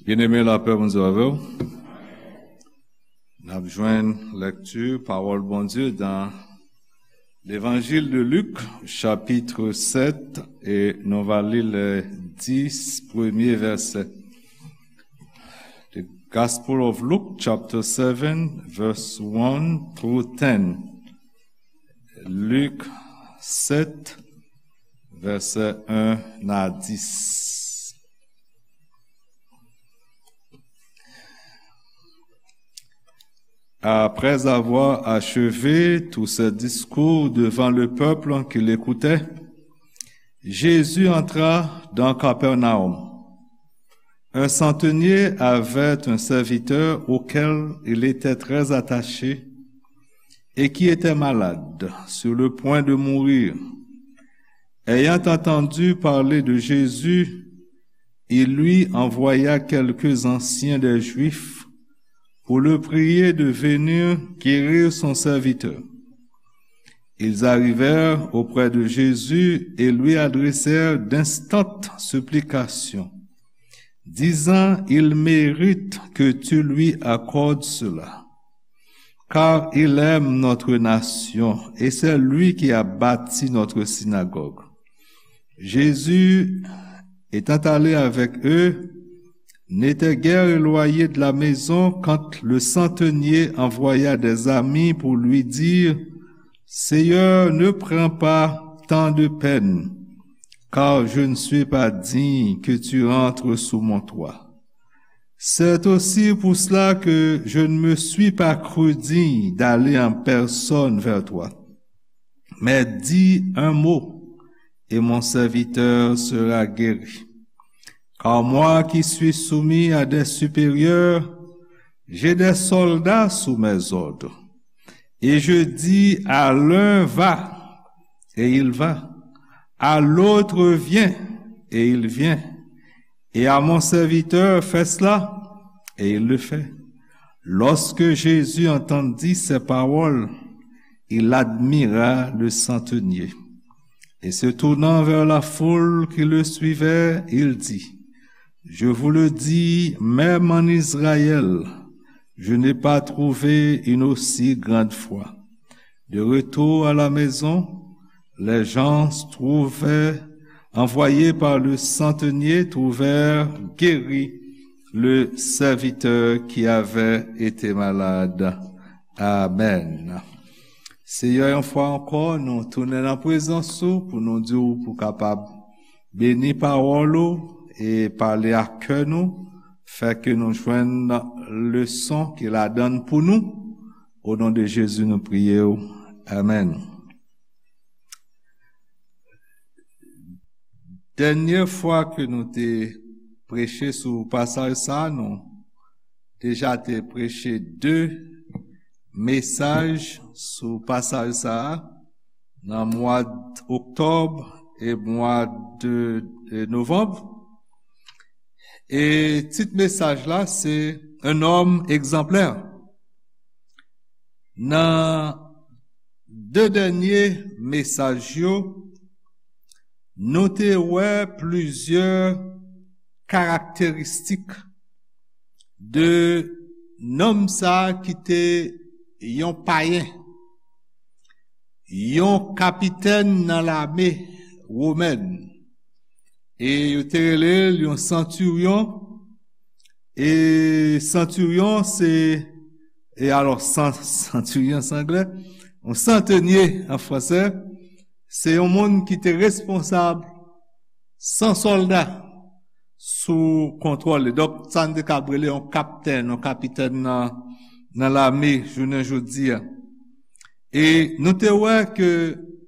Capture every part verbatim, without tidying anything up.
Byeneme, lapè Bondye avè w. N ap jwenn lèkti pawòl Bondye nan Levanjil de Lik, chapitre sept, e nou va li le dix premye vèsè. The Gospel of Luke, chapter seven, verse one through ten. Lik sept, vèsè un a dis. Après avoir achevé tous ses discours devant le peuple qui l'écoutait, Jésus entra dans Capernaum. Un centenier avait un serviteur auquel il était très attaché et qui était malade, sur le point de mourir. Ayant entendu parler de Jésus, il lui envoya quelques anciens des Juifs pour le prier de venir guérir son serviteur. Ils arrivèrent auprès de Jésus et lui adressèrent d'instantes supplications, disant : « Il mérite que tu lui accordes cela, car il aime notre nation, et c'est lui qui a bâti notre synagogue. » Jésus, étant allé avec eux, n'était guère éloigné de la maison quand le centenier envoya des amis pour lui dire : « Seigneur, ne prends pas tant de peine, car je ne suis pas digne que tu entres sous mon toit. C'est aussi pour cela que je ne me suis pas cru digne d'aller en personne vers toi. Mais dis un mot, et mon serviteur sera guéri. Car moi qui suis soumis à des supérieurs, j'ai des soldats sous mes ordres. Et je dis à l'un : va, et il va. À l'autre : viens, et il vient. Et à mon serviteur : fais cela, et il le fait. » Lorsque Jésus entendit ces paroles, il admira le centenier. Et se tournant vers la foule qui le suivait, il dit : « Je vous le dis, même en Israël, je n'ai pas trouvé une aussi grande foi. » De retour à la maison, les gens trouvés, envoyés par le centenier, trouvèrent guéri le serviteur qui avait été malade. Amen. Seyè, yon fwa ankò, nou tounen nan prezans ou pou nou di w pou kapab beni pawòl ou e pale ak kè nou, fè ke nou jwenn leson ki ladan l pou nou. O non de Jezi, nou priye w. Amèn. Dènye fwa ke nou te preche sou pasaj sa a, nou deja te preche de mesaj sou pasaj sa a nan mwa oktòb e mwa de, de novanm. E tit mesaj la se Un homme exemplaire. Nan de dènye mesaj yo, nou te wè plizyè karakteristik de nonm sa a ki te yon payen, yon kapitèn nan lame womèn. E yo te rele l yon santiryon. E santiryon se, e alò, san-, santiryon se anglè, yon santenye an fransè, se yon moun ki te responsab san sòlda sou kontwòl li. Donk, sa n te kab rele yon kaptèn, yon kapitèn nan, nan lame jounen jodi a. E nou te wè ke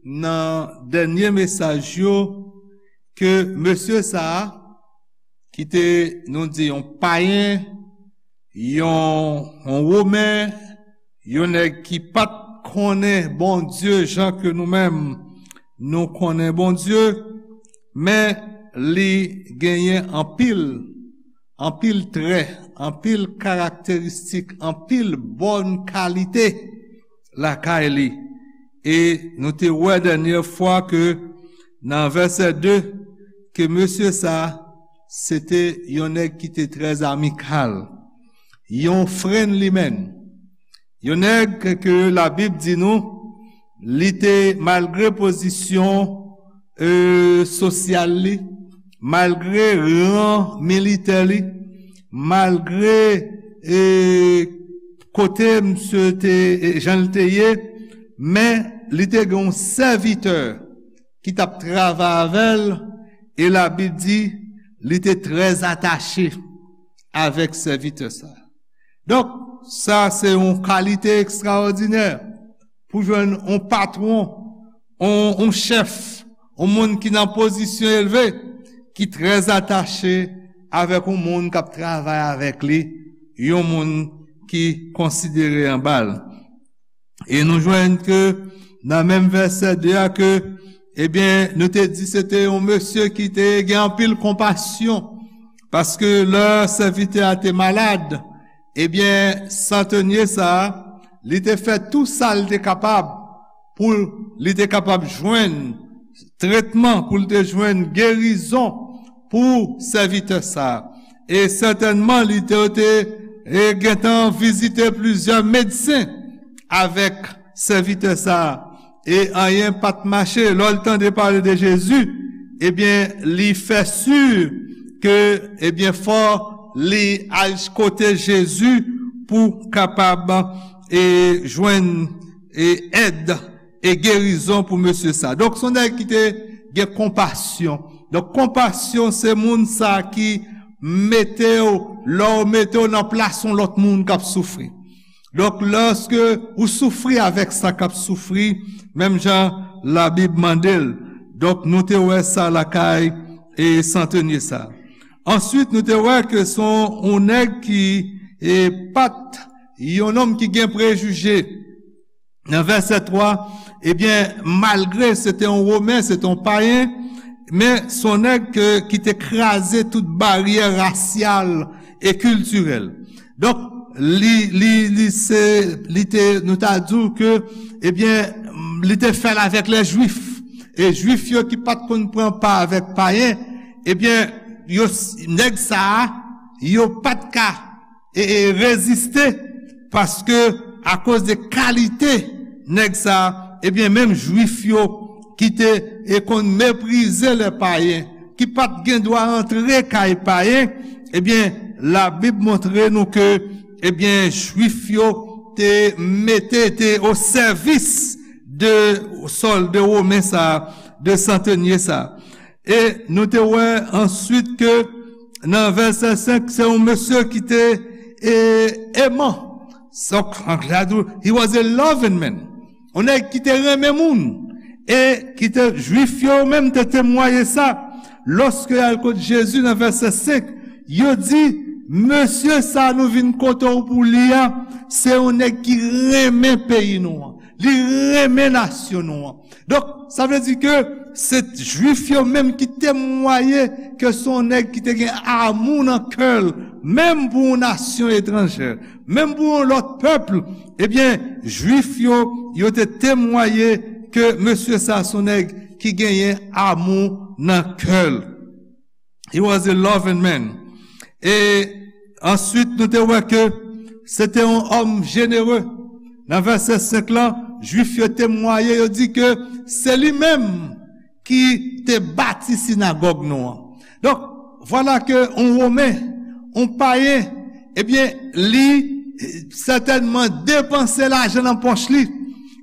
nan dènye mesaj yo, ke mesye sa a, ki te, nou di, yon payen, yon, yon Women, yon nèg ki pa t konnen Bondye jan ke nou menm nou konnen Bondye, men li genyen anpil, anpil trè, anpil karakteristik, anpil bòn kalite lakay li. E nou te wè dènye fwa ke nan vèsè de, ke mesye sa a, se te yon nèg ki te trè amikal, yon friendly man. Yon nèg ke Labib di nou, li te, malgre pozisyon, e, sosyal li, malgre ran militè li, malgre, e, kote misye te, e, jan l te ye, men li te gen yon sèvitè ki t ap travay avè l, e Labib di, li te trè atache avèk sèvitè sa. Donk, sa se yon kalite ekstraòdinè pou jwenn yon patwon, yon, yon chèf, yon moun ki nan pozisyon elve, ki trè atache avèk yon moun k ap travay avèk li, yon moun ki konsidere anba l. E nou jwenn ke nan menm vèsè de a ke, ebyen, nou te di se te yon mesye ki te gen anpil konpasyon, paske lè sèvitè a te malad, ebyen, santanye sa a, li te fè tou sa l te kapab pou li te kapab jwenn tretman, pou li te jwenn gerizon pou sèvitè sa a. E sètènman, li te, te, e, gentan vizite plizyè medsen avèk sèvitè sa a. E anyen pa t mache. Lè l tande pale de Jezi, ebyen, li fè si ke, ebyen, fò li al kote Jezi pou kapab, e, jwenn, e, èd e gerizon pou mesye sa. Donk, se yon nèg ki te gen konpasyon. Donk, konpasyon, se moun sa ki mete w, lè w mete w nan plas yon lòt moun k ap soufri. Donk, lòske ou soufri avèk sa k ap soufri, menm jan Labib mande l. Donk, nou te wè sa lakay e santanye sa. Answit, nou te wè ke se yon, yon nèg ki, e, pa t yon nonm ki gen prejije. Nan vèsè twa, ebyen, malgre se te yon Women, se te yon payen, men se yon nèg ke, ki te kraze tout baryè rasyal e kiltirèl. Donk, li, li, li se, li te, nou ta di w ke, ebyen, li te fè l avèk lè Jwif. E Jwif yo ki pa t konn pran pa avèk payen, ebyen, yo, nèg sa a, yo pa t ka e, e reziste, paske akoz de kalite nèg sa, ebyen, menm Jwif yo ki te, e, konn meprize lè payen, ki pa t gen dwa antre kay payen, ebyen, Labib montre nou ke, ebyen, Jwif yo te mete, te o sèvis de sòlda women sa, de santanye sa. E nou te wè answit ke nan vèsè senk, se yon mesye ki te, e, eman. He was a loving man. Yon nèg ki te renmen moun. E ki te, Jwif yo menm te temwaye sa. Lòske y al kot Jezi nan vèsè senk, yo di, mesye sa nou vin kote w pou li a, se yon nèg ki renmen peyi nou an. Li renmen nasyon nou an. Donk, sa vle di ke se Jwif yo menm ki temwaye ke se yon nèg ki te gen amou nan kè l, menm pou yon nasyon etranjè, menm pou yon lòt pèp, ebyen, Jwif yo, yo te temwaye ke mesye sa se yon nèg ki genyen amou nan kè l. He was a loving man. E answit, nou te wè ke se te yon òm jenere. Nan vèsè senk lan, Jwif yo temwaye, yo di ke se li menm ki te bati sinagòg nou an. Donk, vwala ke yon Women, yon payen, ebyen, li, e, sètènman depanse lajan nan pòch li,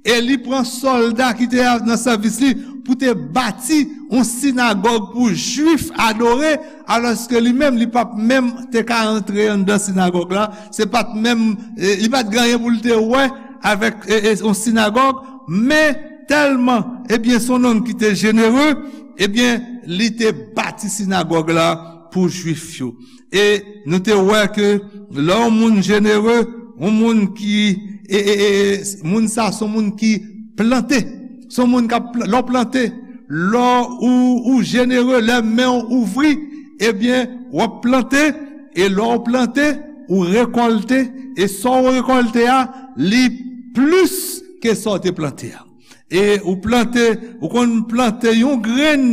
e li pran sòlda ki te nan sèvis li pou te bati yon sinagòg pou Jwif adore, alòske li menm, li p ap menm te ka antre anndan sinagòg la, se pa t menm, e, li pa t gen anyen pou l te wè avèk, e, e, yon sinagòg, men tèlman, ebyen, se yon nonm ki te jenere, ebyen, li te bati sinagòg la pou Jwif yo. E nou te wè ke lè yon moun jenere, yon moun ki, e, e, e, e, moun sa se yon moun ki plante. Se yon moun k ap pla-, lè w plante, lè ou, ou jenere, lè men w ouvri, ebyen, w ap plante, e lè w plante, ou rekòlte, e sa w rekòlte a, li plis ke sa w te plante a. E ou plante, ou konn plante yon grenn,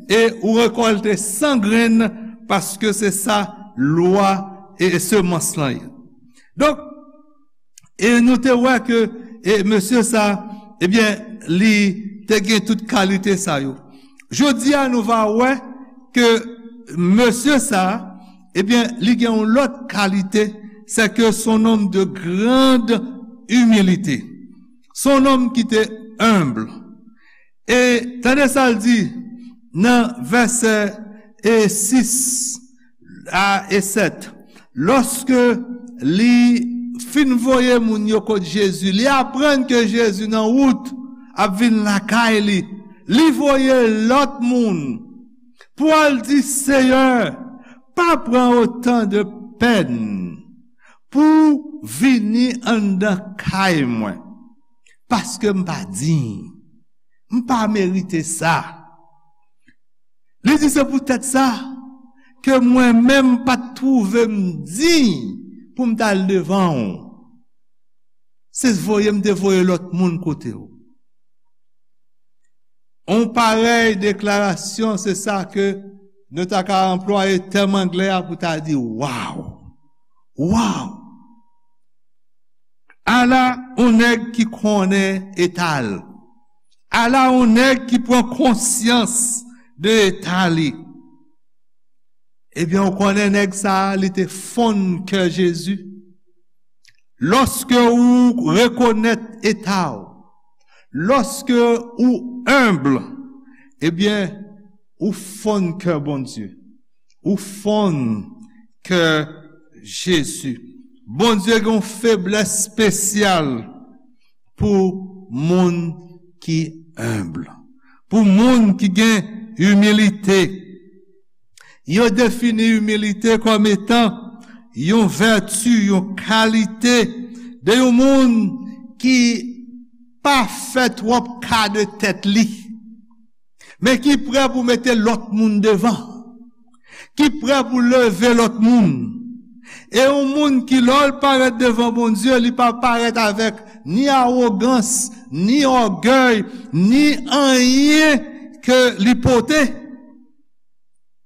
e ou rekòlte san grenn, paske se sa lwa e, e semans lan ye. Donk, e nou te wè ke, e mesye sa, ebyen, li te gen tout kalite sa yo. Jodi a, nou va wè ke mesye sa, ebyen, li gen yon lòt kalite, c'est que c'est un homme de grande humilité. C'est un homme qui était humble. E tande sa l di nan vèsè e sis a e sèt. Lòske li fin voye moun yo kot Jezi, li aprann ke Jezi nan wout ap vin lakay li, li voye lòt moun pou al di, Seyè, pa pran otan de pèn pou vini anndan kay mwen, paske m pa diy. M pa merite sa. Li di, se poutèt sa ke mwen menm pa t twouve m diy pou m t al devan w. Se voye m te voye lòt moun kote w. On parèy deklarasyon, se sa ke nou ta ka anplwaye tèm anglè a pou ta di, waw! Waw! Ala on nèg ki konnen eta l. Ala on nèg ki pran konsyans de eta li. Ebyen, ou konnen nèg sa a, li te fonn kè Jezi. Lòske ou rekonèt eta w, lòske ou enb, ebyen, ou fonn kè Bondye. Ou fonn kè Jezi. Bondye gen yon feblès espesyal pou moun ki enb, pou moun ki gen imilite. Yo defini imilite kòm etan yon vèti, yon kalite de yon moun ki pa fè twòp ka de tèt li, men ki prè pou mete lòt moun devan, ki prè pou leve lòt moun. E yon moun ki, lè l parèt devan Bondye, li pa parèt avèk ni awogans, ni ògèy, ni anyen ke li pote.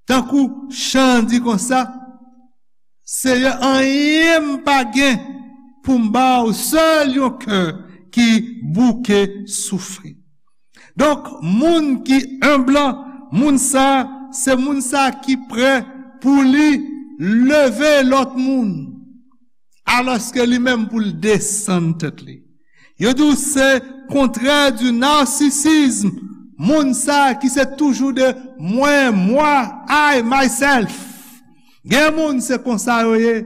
Tankou chan an di konsa, Seyè, anyen m pa gen pou m ba w, sèl yon kè ki bouke soufri. Donk, moun ki enb lan, moun sa, se moun sa ki prè pou li leve lòt moun, alòske li menm pou l desann tèt li. Yo di w se kontrè di narsisizm, moun sa ki se toujou de mwen, mwa, I, myself. Gen moun se konsa yo ye,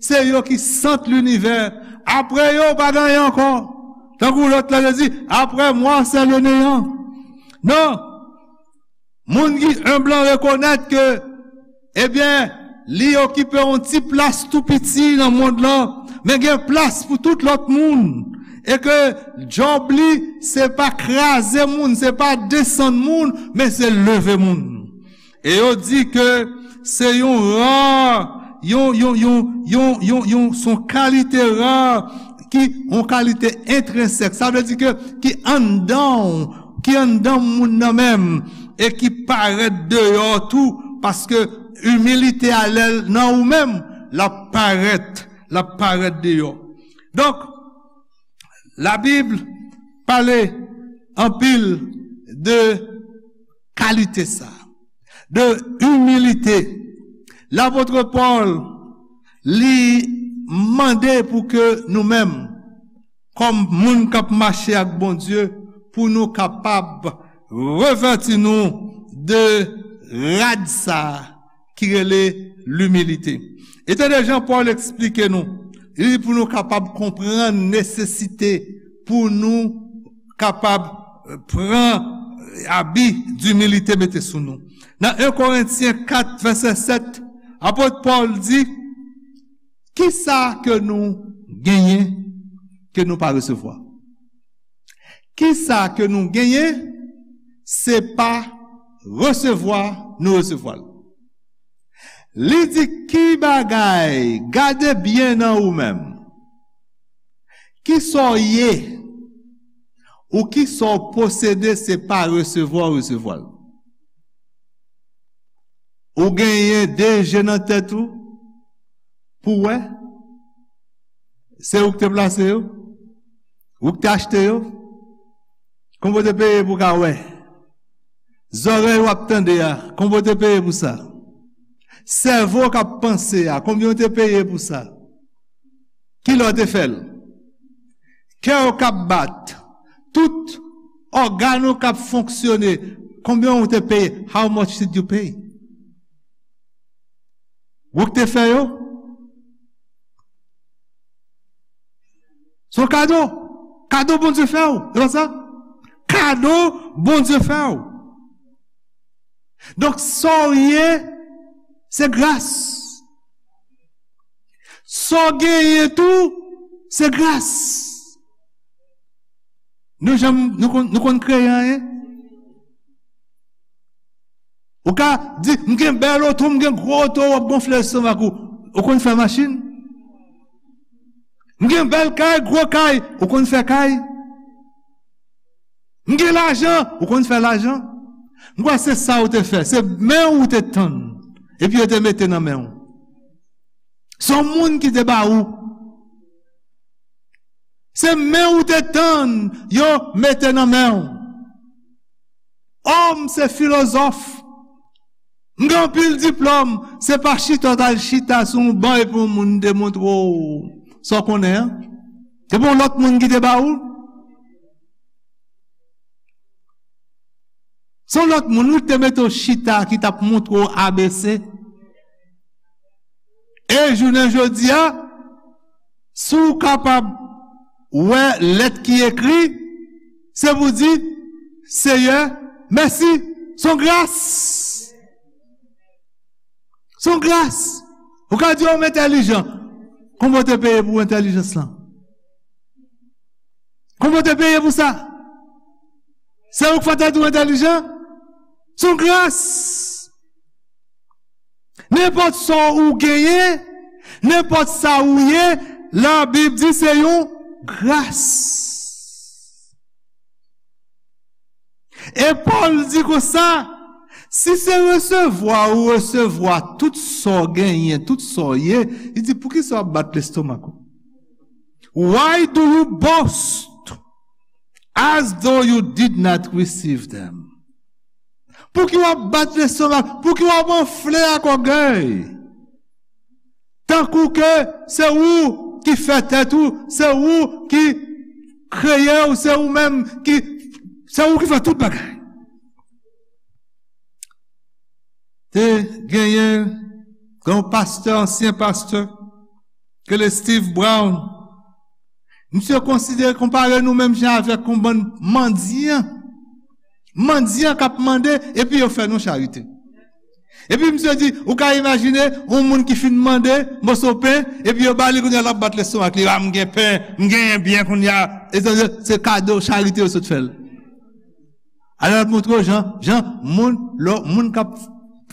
se yo ki sant linivè. Apre yo, pa gen anyen ankò. Tankou lòt la te di, après moi, c'est le néant. Non. Moun ki enb lan rekonèt ke, ebyen, li okipe yon ti plas tou piti nan mond lan, men gen plas pou tout lòt moun. E ke djòb li, se pa kraze moun, se pa desann moun, men se leve moun. E yo di ke se yon ra, yon, yon, yon, yon, yon, yon, se yon kalite ra ki, yon kalite entrensèk. Sa vle di ke ki anndan w, ki anndan moun nan menm, e ki parèt deyò tou, paske imilite a lè l nan ou menm, l ap parèt, l ap parèt deyò. Donk, Labib pale anpil de kalite sa, de imilite. Lapot Pòl, li mande pou ke nou menm, kòm moun k ap mache ak Bondye, pou nou kapab revèti nou de rad sa ki rele limilite. E tande jan Pòl eksplike nou, li di pou nou kapab konprann nesesite pou nou kapab, eh, pran abi dimilite mete sou nou. Nan en Korentyen kat, vèsè sèt, apot Pòl di, kisa ke nou genyen ke nou pa resevwa? Kisa ke nou genyen, se pa resevwa nou resevwa l. Li di, ki bagay, gade byen nan ou menm. Kisa w ye, ou kisa w posede, se pa resevwa w resevwa l. Ou genyen de je nan tèt ou pou wè? Se ou ki te plase yo? Ou ki te achte yo? Konbyen w te peye pou w ka wè? Zòrèy w ap tande a, konbyen w te peye pou sa? Sèvo k ap panse a, konbyen w te peye pou sa? Kilè w te fè l? Kè w k ap bat, tout ògàn ou k ap fonksyone, konbyen w te peye? How much did you pay? Ou k te fè yo? Se yon kado. Kado Bondye fè w. E pa sa? Kado Bondye fè w. Donk, sa w ye, se gras. Sa w genyen tou, se gras. Nou janm, nou konn, nou konn kreye anyen? Ou ka di, "M gen bèl oto, m gen gwo oto," w ap gonfle lestomak ou. Ou konn fè machin? "M gen bèl kay, gwo kay." Ou konn fè kay? "M gen lajan." Ou konn fè lajan? M kwè se sa ou te fè. Se men ou te tann. Epi yo te mete nan men ou. Se yon moun ki te ba ou. Se men ou te tann yo mete nan men ou. O, m se filozòf. M gen anpil diplòm. Se pa chita w t al chita sou yon ban epi yon moun te montre w sa w konnen an. Se pa yon lòt moun ki te ba ou. Se yon lòt moun, wi, ki te mete w chita, ki t ap montre w A B C. E jounen jodi a, si w kapab wè lèt ki ekri, se pou di, "Seyè, mèsi." Se yon gras. Se yon gras. Ou ka di, "O, m entèlijan." Konbyen w te peye pou entèlijans lan? Konbyen w te peye pou sa? Se ou k fè tèt ou entèlijan? Se yon gras. Nenpòt sa ou genyen, nenpòt sa ou ye, Labib di se yon gras. E Pòl di konsa, si se resevwa ou resevwa tout sa w genyen, tout sa w ye, li di, poukisa w ap bat lestomak ou? Why do you boast as though you did not receive them? Pouki w ap bat lestomak? Pouki w ap anfle ak ògèy? Tankou ke se ou ki fè tèt ou, se ou ki kreye w, se ou menm ki, se ou ki fè tout bagay. Te genyen yon pastè, ansyen pastè, ke le Steve Brown. Misye konsidere, konpare nou menm jan avèk yon bann mandyan. Mandyan k ap mande, epi yo fè nou charite. Epi misye di, ou ka imajine yon moun ki fin mande moso pen, epi yo ba li, kounye a l ap bat lestomak li, "A, m gen pen, m genyen byen kounye a." E se, se kado, charite yo sot fè l. Alò, l ap montre w jan, jan moun, lò, moun k ap,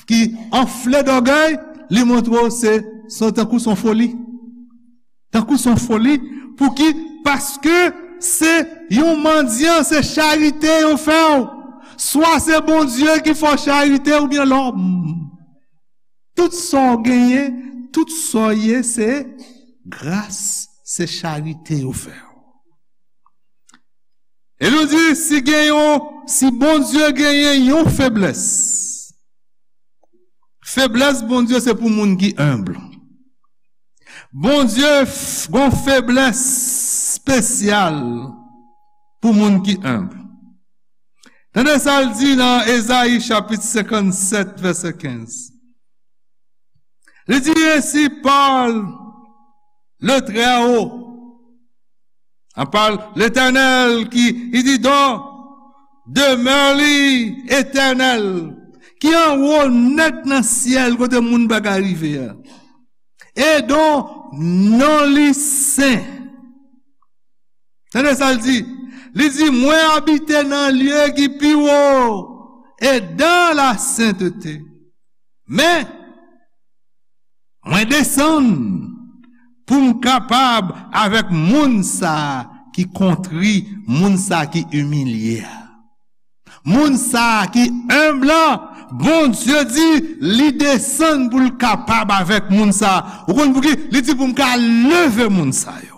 ki anfle dògèy, li montre w se, se tankou se yon foli. Tankou se yon foli. Pouki? Paske se yon mandyan, se charite yo fè w. Swa se Bondye ki fè w charite oubyen lòm. Tout sa w genyen, tout sa w ye, se gras, se charite yo fè w. E nou di, si gen yon, si Bondye genyen yon feblès, feblès Bondye se pou moun ki enb. Bondye f-, gon feblès espesyal pou moun ki enb. Tande sa l di nan Ezayi chapit senkannsèt, vèsè kenz. Li di, ainsi parle le Très-Haut. An pale Letènèl ki, li di, dò demè li etènèl, ki anwo nèt nan syèl kote moun pa ka rive a. E dont non li sen. Tande sa l di. Li di, mwen abite nan lye ki pi wo e dan la sentete. Men, mwen desann pou m kapab avèk moun sa a ki kontri, moun sa a ki imilye a. Moun sa a ki enb lan, Bondye di li desann pou l kapab avèk moun sa. Ou konn pouki? Li di pou m ka leve moun sa yo.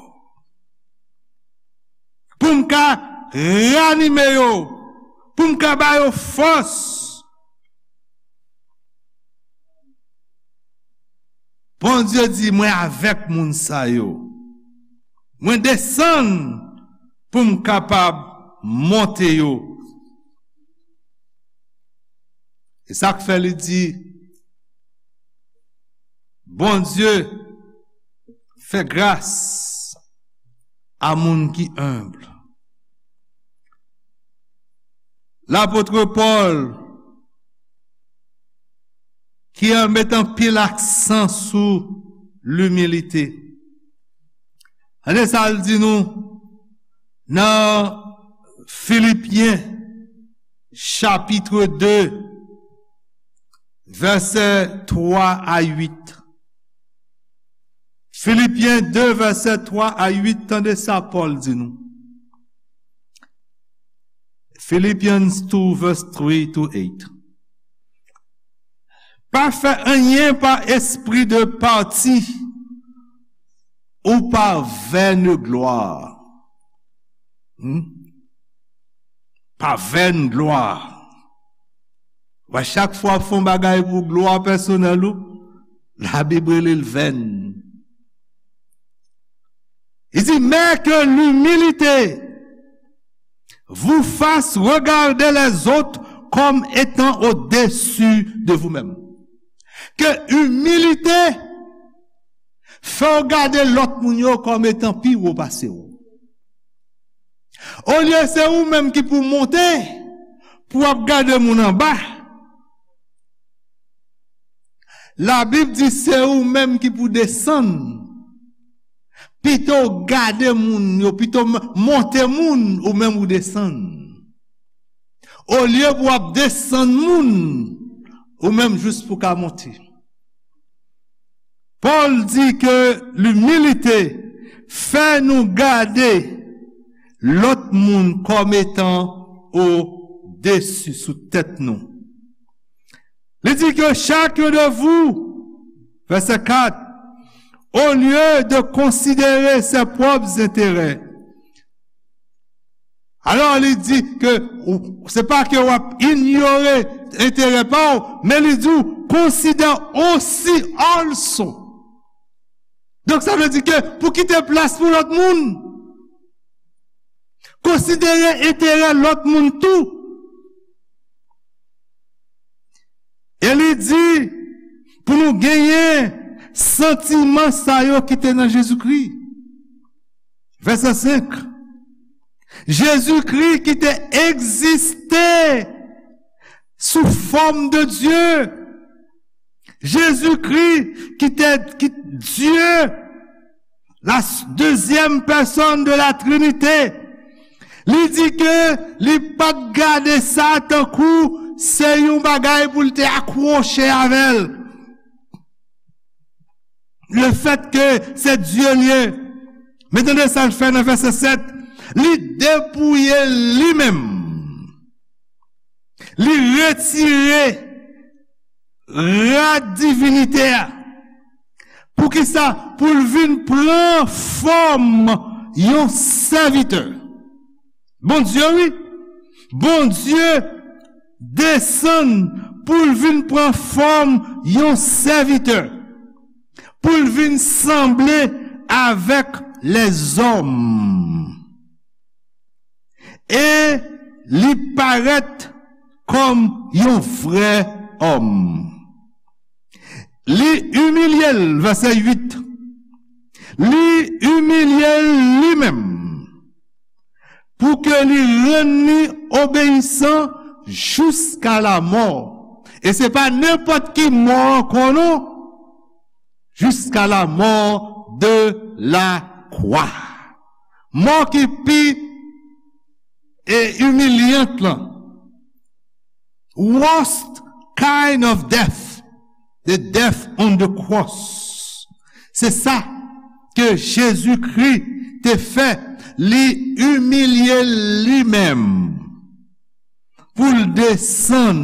Pou m ka ranime yo. Pou m ka ba yo fòs. Bondye di, mwen avèk moun sa yo. Mwen desann pou m kapab monte yo. E sa k fè li di, Bondye fè gras a moun ki enb. Lapot Pòl ki met anpil aksan sou limilite. Tande sa l di nou nan Filipyen chapit de, vèsè twa a uit. Filipyen de, vèsè twa a uit, tande sa Pòl di nou. Philippians two, verse three to eight. Pa fè anyen pa espri de pati ou pa vèn glwa. Hmm? Pa vèn glwa. Wè, chak fwa w ap fè yon bagay pou glwa pèsonèl ou, Labib rele l vèn. Il dit, mais que l'humilité vous fasse regarder les autres comme étant au-dessus de vous-même. Ke imilite fè w gade lòt moun yo kòm etan pi wo pase w. Olye se ou menm ki pou monte, pou w ap gade moun anba, Labib di se ou menm ki pou desann. Pito w gade moun yo, pito m-, monte moun, ou menm ou desann. Olye pou w ap desann moun, ou menm jis pou ka monte. Pòl di ke limilite fè nou gade lòt moun kòm etan odesi, sou tèt nou. Li di ke chacun de vous, vèsè kat, au lieu de considérer ses propres intérêts, alò, li di ke ou, se pa ke w ap inyore enterè pa w, men li di w, consider aussi also. Donk, sa vle di ke pou kite plas pou lòt moun, konsidere enterè lòt moun tou. E li di pou nou genyen santiman sa yo ki te nan Jezikri. Vèsè senk. Jezikri ki te egziste sou fòm de Dye. Jezikri ki te, ki Dye, la s-, deuxième personne de la Trinité, li di ke li pa t gade sa tankou se yon bagay pou l te akwoche avè l. Le fait que c'est Dieu li ye. Men tande sa l fè nan vèsè sèt. Li depouye li menm. Li retire rad divinite a. Poukisa? Pou l vin pran fòm yon sèvitè. Bondye, wi. Bondye desann pou l vin pran fòm yon sèvitè, pou l vin sanble avèk lèzòm. E li parèt kòm yon vrè òm. Li imilye l, vèsè uit. Li imilye l li menm pou ke li rann li obeyisan jiska lamò. E se pa nenpòt ki mò ankò non. Jusqu'à la mort de la croix. Mò ki pi e imilyant lan. Worst kind of death, the death on the cross. Se sa ke Jezikri te fè, li imilye li menm pou l desann,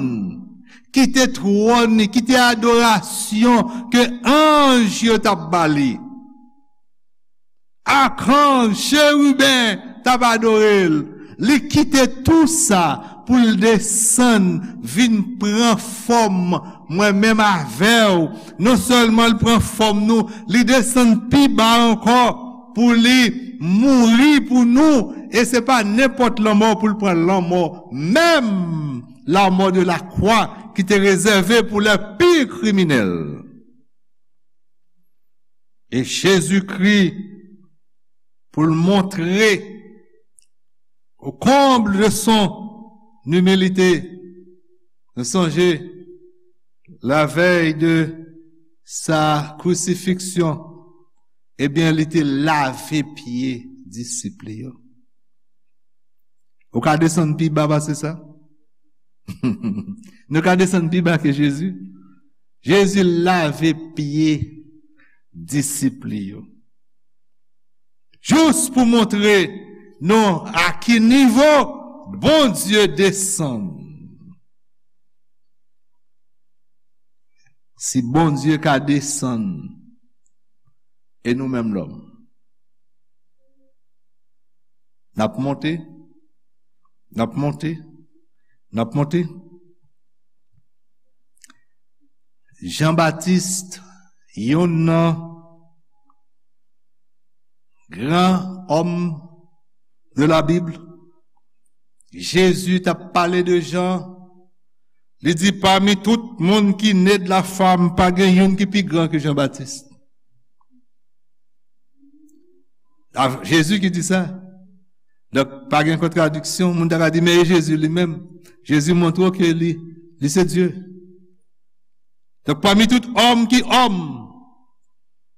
kite twòn li, kite adorasyon ke anj yo t ap ba li. Akanj, cheriben t ap adore l. Li kite tou sa pou l desann, vin pran fòm mwen menm avè w. Non sèlman l pran fòm nou, li desann pi ba ankò pou li mouri pou nou. E se pa nenpòt lanmò pou l pran, lanmò menm, la mort de la croix, ki te rezève pou lè pi kriminèl. E Jezikri, pou l montre, au comble de son humilité, nou sonje, la veille de sa crucifixion, ebyen, li te lave pye disip li yo. Ou ka desann pi ba pase sa? Nou ka desann pi ba ke Jezi? Jezi lave pye disip li yo. Jis pou montre nou a ki nivo Bondye desann. Si Bondye ka desann, e nou menm lòm? N ap monte, n ap monte, n ap monte. Jan Batis, youn nan gran òm de la Bib, Jezi t ap pale de Jan, li di, pami tout moun ki ne de la fam, pa gen youn ki pi gran ke Jan Batis. A, Jezi ki di sa. Donk, pa gen kontradiksyon. Moun ta ka di, men e Jezi li menm. Jezi montre w ke li, li se Dye. Donk, pami tout òm ki òm,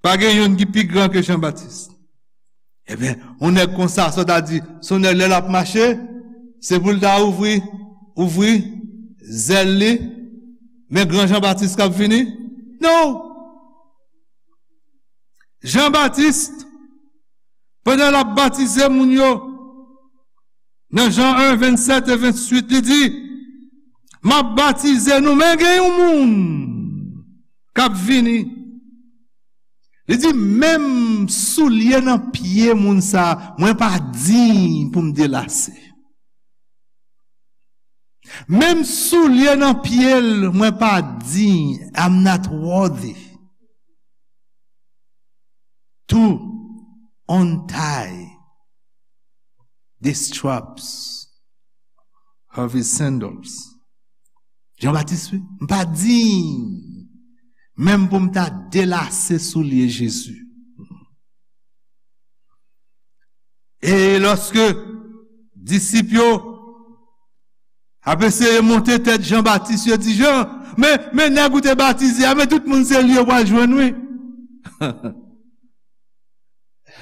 pa gen youn ki pi gran ke Jan Batis. Ebyen, yon nèg konsa, sa w ta di, se yon nèg lè l ap mache, se pou l ta ouvri, ouvri zèl li, men gran Jan Batis k ap vini? Non! Jan Batis, pandan l ap batize moun yo, nan Jan en, vennsèt e venntuit, li di, m ap batize nou, men gen yon moun k ap vini. Li di, menm soulye nan pye moun sa, mwen pa diy pou m delase. Menm soulye nan pye l, mwen pa diy, I'm not worthy to untie the straps of his sandals. Jan Batis, wi, m pa diy menm pou m ta delase soulye Jezi. E lòske disip yo ap eseye monte tèt Jan Batis, yo di, Jan, men, men nèg ou te batize a, men tout moun se li yo pral jwenn, wi.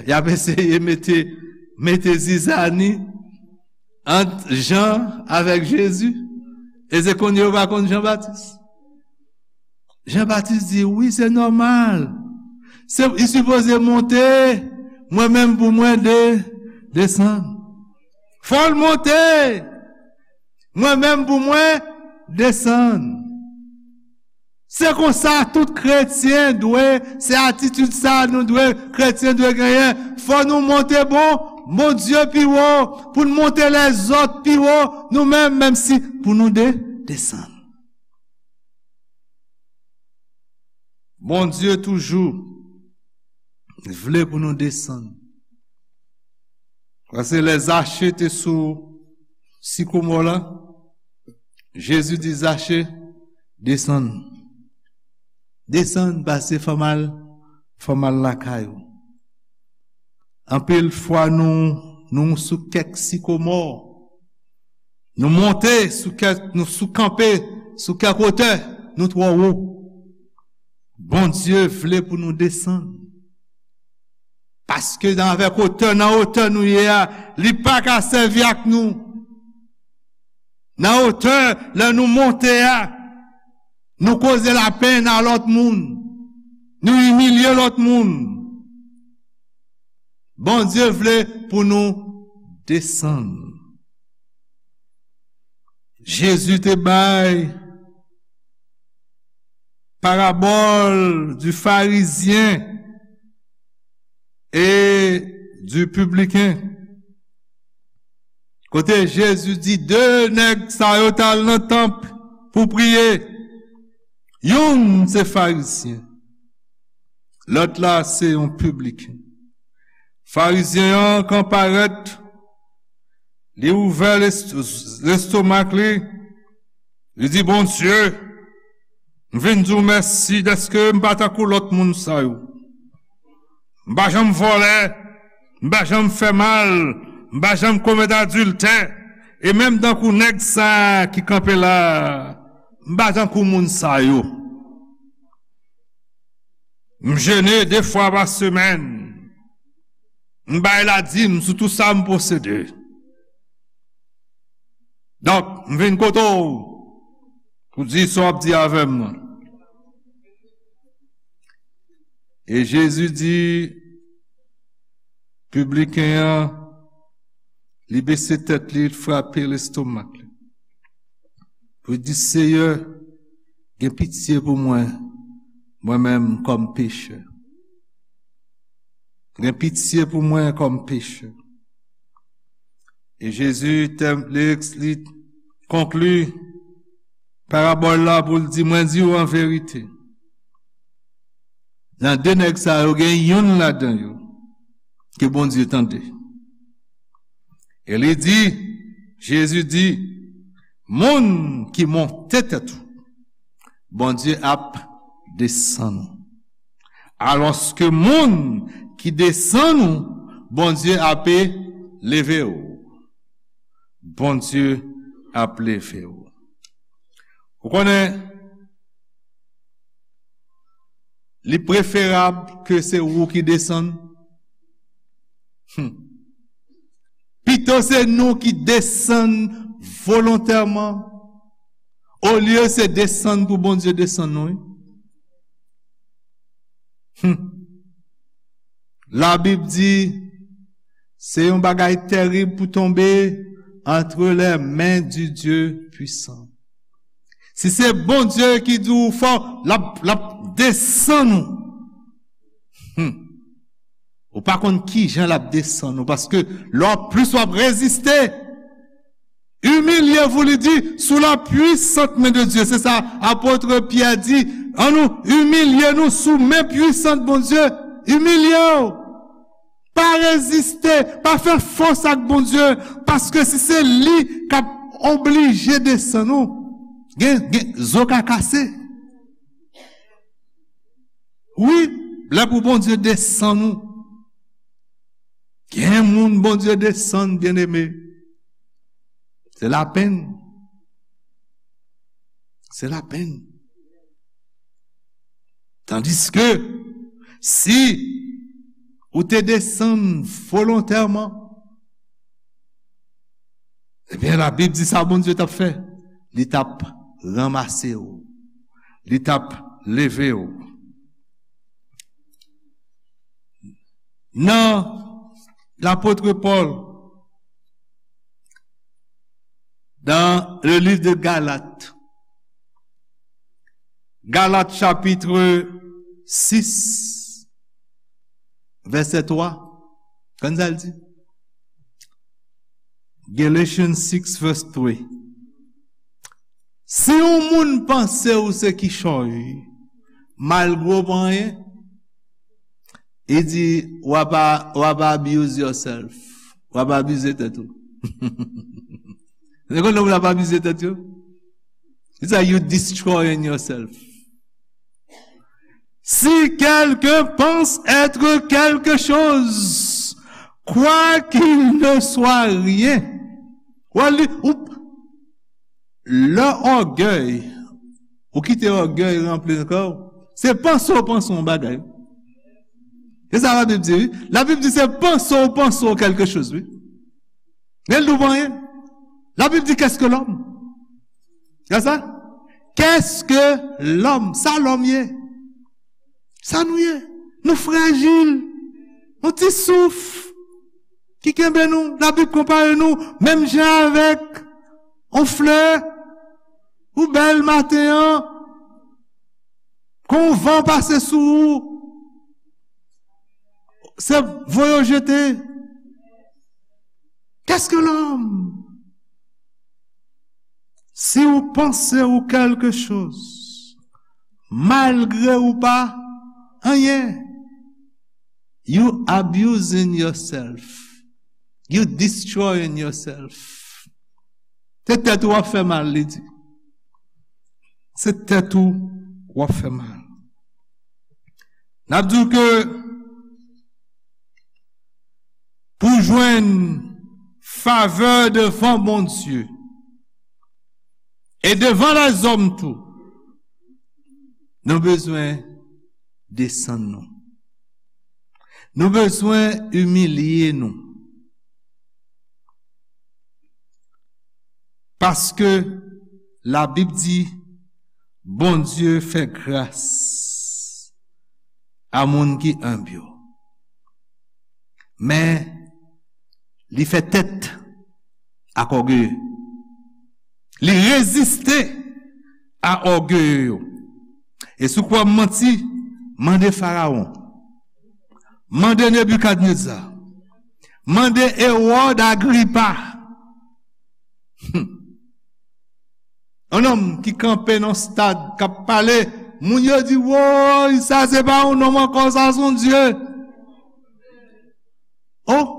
Y ap eseye mete, mete zizani ant Jan avèk Jezi. E se kounye yo pa konn Jan Batis. Jan Batis di, wi, se nòmal. Se, li sipoze monte, mwen menm pou mwen de, desann. Fò l monte, mwen menm pou mwen desann. Se konsa tout kretyen dwe, se atitid sa nou dwe, kretyen dwe genyen. Fò nou monte bon, Bondye pi wo, pou n monte lèzòt pi wo, nou menm, menm si pou nou de, desann. Bondye toujou vle pou nou desann. Paske lè Zache te sou sikomò la, Jezi di Zache, desann. Desann, pase fò m al, fò m al lakay ou. Anpil fwa nou, nou sou kèk sikomò. Nou monte sou kèk, nou sou kanpe sou kèk wotè, nou twò wo. Bondye vle pou nou desann. Paske nan avèk wotè, nan wotè nou ye a, li pa ka sèvi ak nou. Nan wotè, lè nou monte a, nou koze lapenn a lòt moun. Nou imilye lòt moun. Bondye vle pou nou desann. Jezi te bay parabole du pharisien et du publicain. Kote Jezi di de nèg sa yo t al nan tanp pou priye. Youn se Farizyen, lòt la se yon pibliken. Farizyen an, kan parèt, li ouvè lest-, lestomak li, li di, "Bondye, m vin di w mèsi dèske m pa tankou lòt moun sa yo. M pa janm vòlè, m pa janm fè mal, m pa janm komèt adiltè, e menm tankou nèg sa a ki kanpe la a, m pa tankou moun sa yo. M jene de fwa pa semèn, m bay ladim sou tou sa m posede. Donk, m vin kote w pou di sa w ap di avè m nan." E Jezi di, pibliken an, li bese tèt li, li frape lestomak li. Pou li di, "Seyè, gen pitye pou mwen, mwen menm kòm pechè. Gen pitye pou mwen kòm pechè." E Jezi tè-, li, li konkli parabòl la pou l di, "Mwen di w an verite, nan de nèg sa yo, gen youn ladan yo ke Bondye tande." E li di, Jezi di, "Moun ki monte tèt ou, Bondye ap desann ou. Alòske moun ki desann ou, Bondye ap leve w." Bondye ap leve w. Ou konnen, li preferab ke se ou ki desann. Hmm. Pito se nou ki desann volontèman, olye se desann pou Bondye desann nou, wi. Hmm. Labib di, se yon bagay tèrib pou tonbe entre les mains du Dieu puissant. Si se Bondye ki di w fò, l ap, l ap desann ou. Hmm. Ou pa konn ki jan l ap desann ou, paske lè w ap, plis w ap reziste, imilye vous, li di, sous la puissante main de Dieu. Se sa apot Pyè di, ann nou imilye nou sou men pwisan Bondye. Imilye w. Pa reziste, pa fè fòs ak Bondye, paske si se li k ap oblije desann ou, gen, gen, zo ka kase. Wi, lè pou Bondye desann ou. Gen moun Bondye desann, byeneme. Se lapenn. Se lapenn. Tandiske, si ou te desann volontèman, ebyen, Labib di sa Bondye t ap fè. Li t ap ranmase w. Li t ap leve w. Nan lapot Pòl, dans le livre de Galates, Galat chapit sis, vèsè twa. Konn sa l di? Galatians six verse three. Si yon moun panse ou se kichòy, malgre w pa anyen, li di, w ap, w ap abuse yourself. W ap abize tèt ou. Se konn moun ap abize tèt yo? Li di, you destroying yourself. Si quelqu'un pense être quelque chose, quoi qu'il ne soit rien. Ou li, ou, lè ògèy, ou kite ògèy ranpli nan kè w, se panse w panse yon bagay. Se sa Labib di, wi. Labib di se panse w panse w quelque chose, wi. Men l di w pa anyen. Labib di, qu'est-ce que l'homme? Gade sa? Qu'est-ce que l'homme? Sa lòm ye. Sa nou ye. Nou frajil. Yon ti souf ki kenbe nou. Labib konpare nou menm jan avèk yon flè. Ou bèl maten an. Kon van pase sou ou, se voye w jete. Qu'est-ce que l'homme? Si ou panse ou quelque chose, malgre ou pa anyen, you abusing yourself. You destroying yourself. Se tèt ou w ap fè mal, li di. Se tèt ou w ap fè mal. N ap di w ke pou jwenn favè devan Bondye e devan lèzòm tou, nou bezwen desann nou. Nou bezwen imilye nou. Paske Labib di, Bondye fè gras a moun ki enb yo. Men, li fè tèt ak ògeye. Li reziste a ògeye yo. E si w kwè m manti, mande Farawon. Mande Nebikadneza. Mande Ewòd Agripa. Hmm. Yon nonm ki kanpe nan stad, k ap pale, moun yo di, woy, sa se pa yon nonm ankò, sa se yon dye. Oh!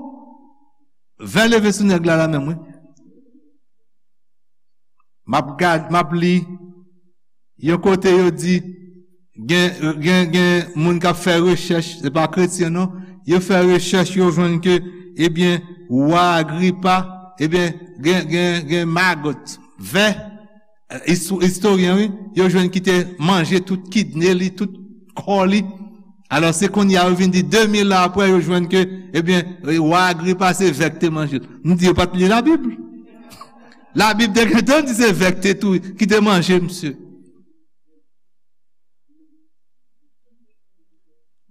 Vè leve sou nèg la, la menm, wi. M ap gad, m ap li. Yon kote yo di, gen, gen, gen moun k ap fè rechèch, se pa kretyen non, yo fè rechèch, yo jwenn ke, ebyen, wa Agripa, ebyen, gen, gen, gen magot, vè, eh, isto-, istoryen, wi, yo jwenn ki te manje tout kidne li, tout kò li. Alò, se kounye a yo vin di, de mil an apre, yo jwenn ke, ebyen, wa Agripa se vè k te manje l. M di, yo pa t li Labib. Labib te gentan di se vè k te tou, ki te manje misye.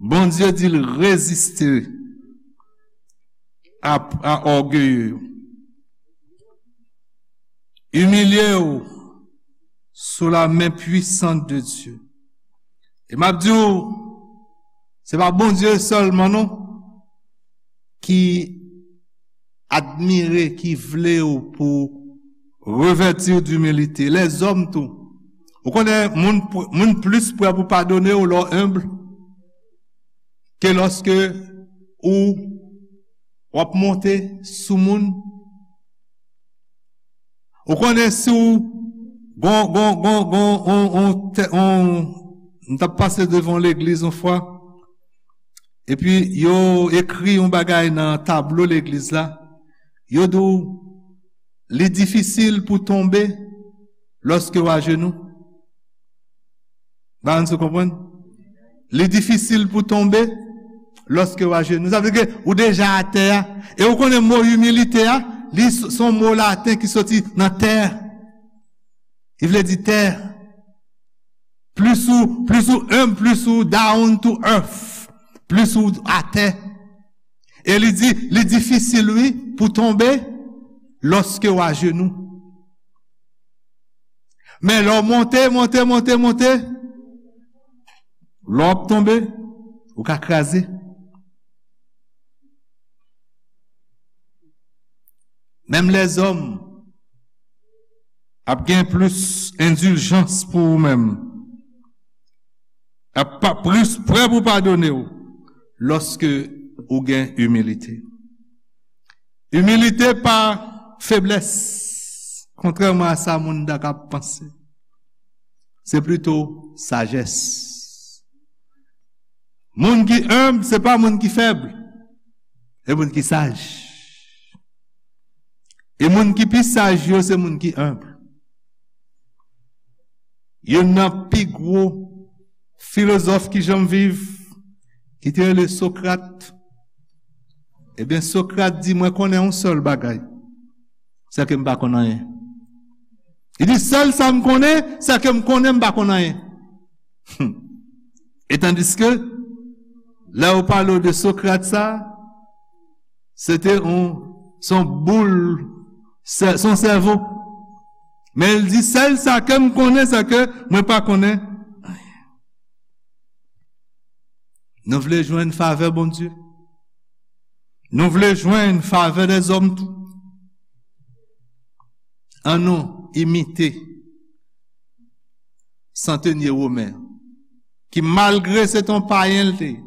Bondye di l reziste a, a ògeye yo. Imilye w sou la men pwisant de Dye. E m ap di w, se pa Bondye sèlman non ki admire, ki vle w pou revèti w dimilite. Lèzòm tou. Ou konnen moun, moun plis prè pou padone w lè w enb ke lòske ou w ap monte sou moun. Ou konnen si w gon, gon, gon, gon, on, on, tè-, on, m t ap pase devan yon legliz yon fwa, epi yo ekri yon bagay nan tablo legliz la, yo di w, li difisil pou tonbe lòske w ajenou. Ba nou konprann? Li difisil pou tonbe lòske w ajenou. Sa vle di ke ou deja atè a. E ou konnen mo imilite a, li s-, se yon mo laten ki soti nan tè. Li vle di tè. Plis ou, plis ou enb, plis ou down to earth. Plis ou atè. E li di, li difisil, wi, pou tonbe lòske w ajenou. Men lè w monte, monte, monte, monte, lè w ap tonbe, ou ka kraze. Menm lèzòm ap gen plis endiljans pou ou menm, ap pa plis prè pou padone w lòske ou gen imilite. Imilite pa feblès, kontrèman a sa moun ta ka panse. Se plito sajès. Moun ki enb, se pa moun ki fèb. Se moun ki saj. E moun ki pi saj yo, se moun ki enb. Youn nan pi gwo filozòf ki janm viv, ki te rele Sokrat. Ebyen, Sokrat di, mwen konnen yon sèl bagay, se ke m pa konn anyen. Li di, sèl sa m konnen, se ke m konnen m pa konn anyen. Hmm. E tandiske, lè yo pale w de Sokrat sa, se te yon, se yon boul, se, se yon sèvo. Men li di, sèl sa ke m konnen, se ke mwen pa konnen anyen. Nou vle jwenn favè Bondye. Nou vle jwenn favè lèzòm tou. Annou imite Santenye Women, ki malgre se t on payen l te ye,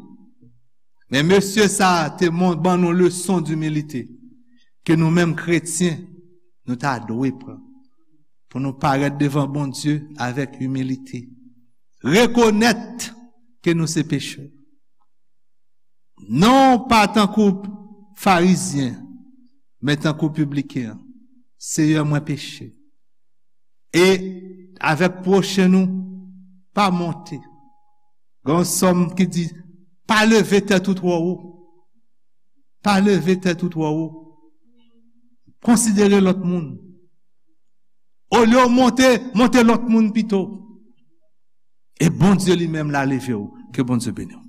men mesye sa a te ban nou leson dimilite ke nou menm kretyen, nou ta dwe pran pou nou parèt devan Bondye avèk imilite. Rekonèt ke nou se pechè. Non pa tankou Farizyen, men tankou pibliken an. Seyè, mwen peche. E avèk pwochen nou, pa monte. Gen yon sòm ki di, pa leve tèt ou twò wo. Pa leve tèt ou twò wo. Konsidere lòt moun. Olye w monte, monte lòt moun pito. E Bondye li menm la leve w. Ke Bondye beni w.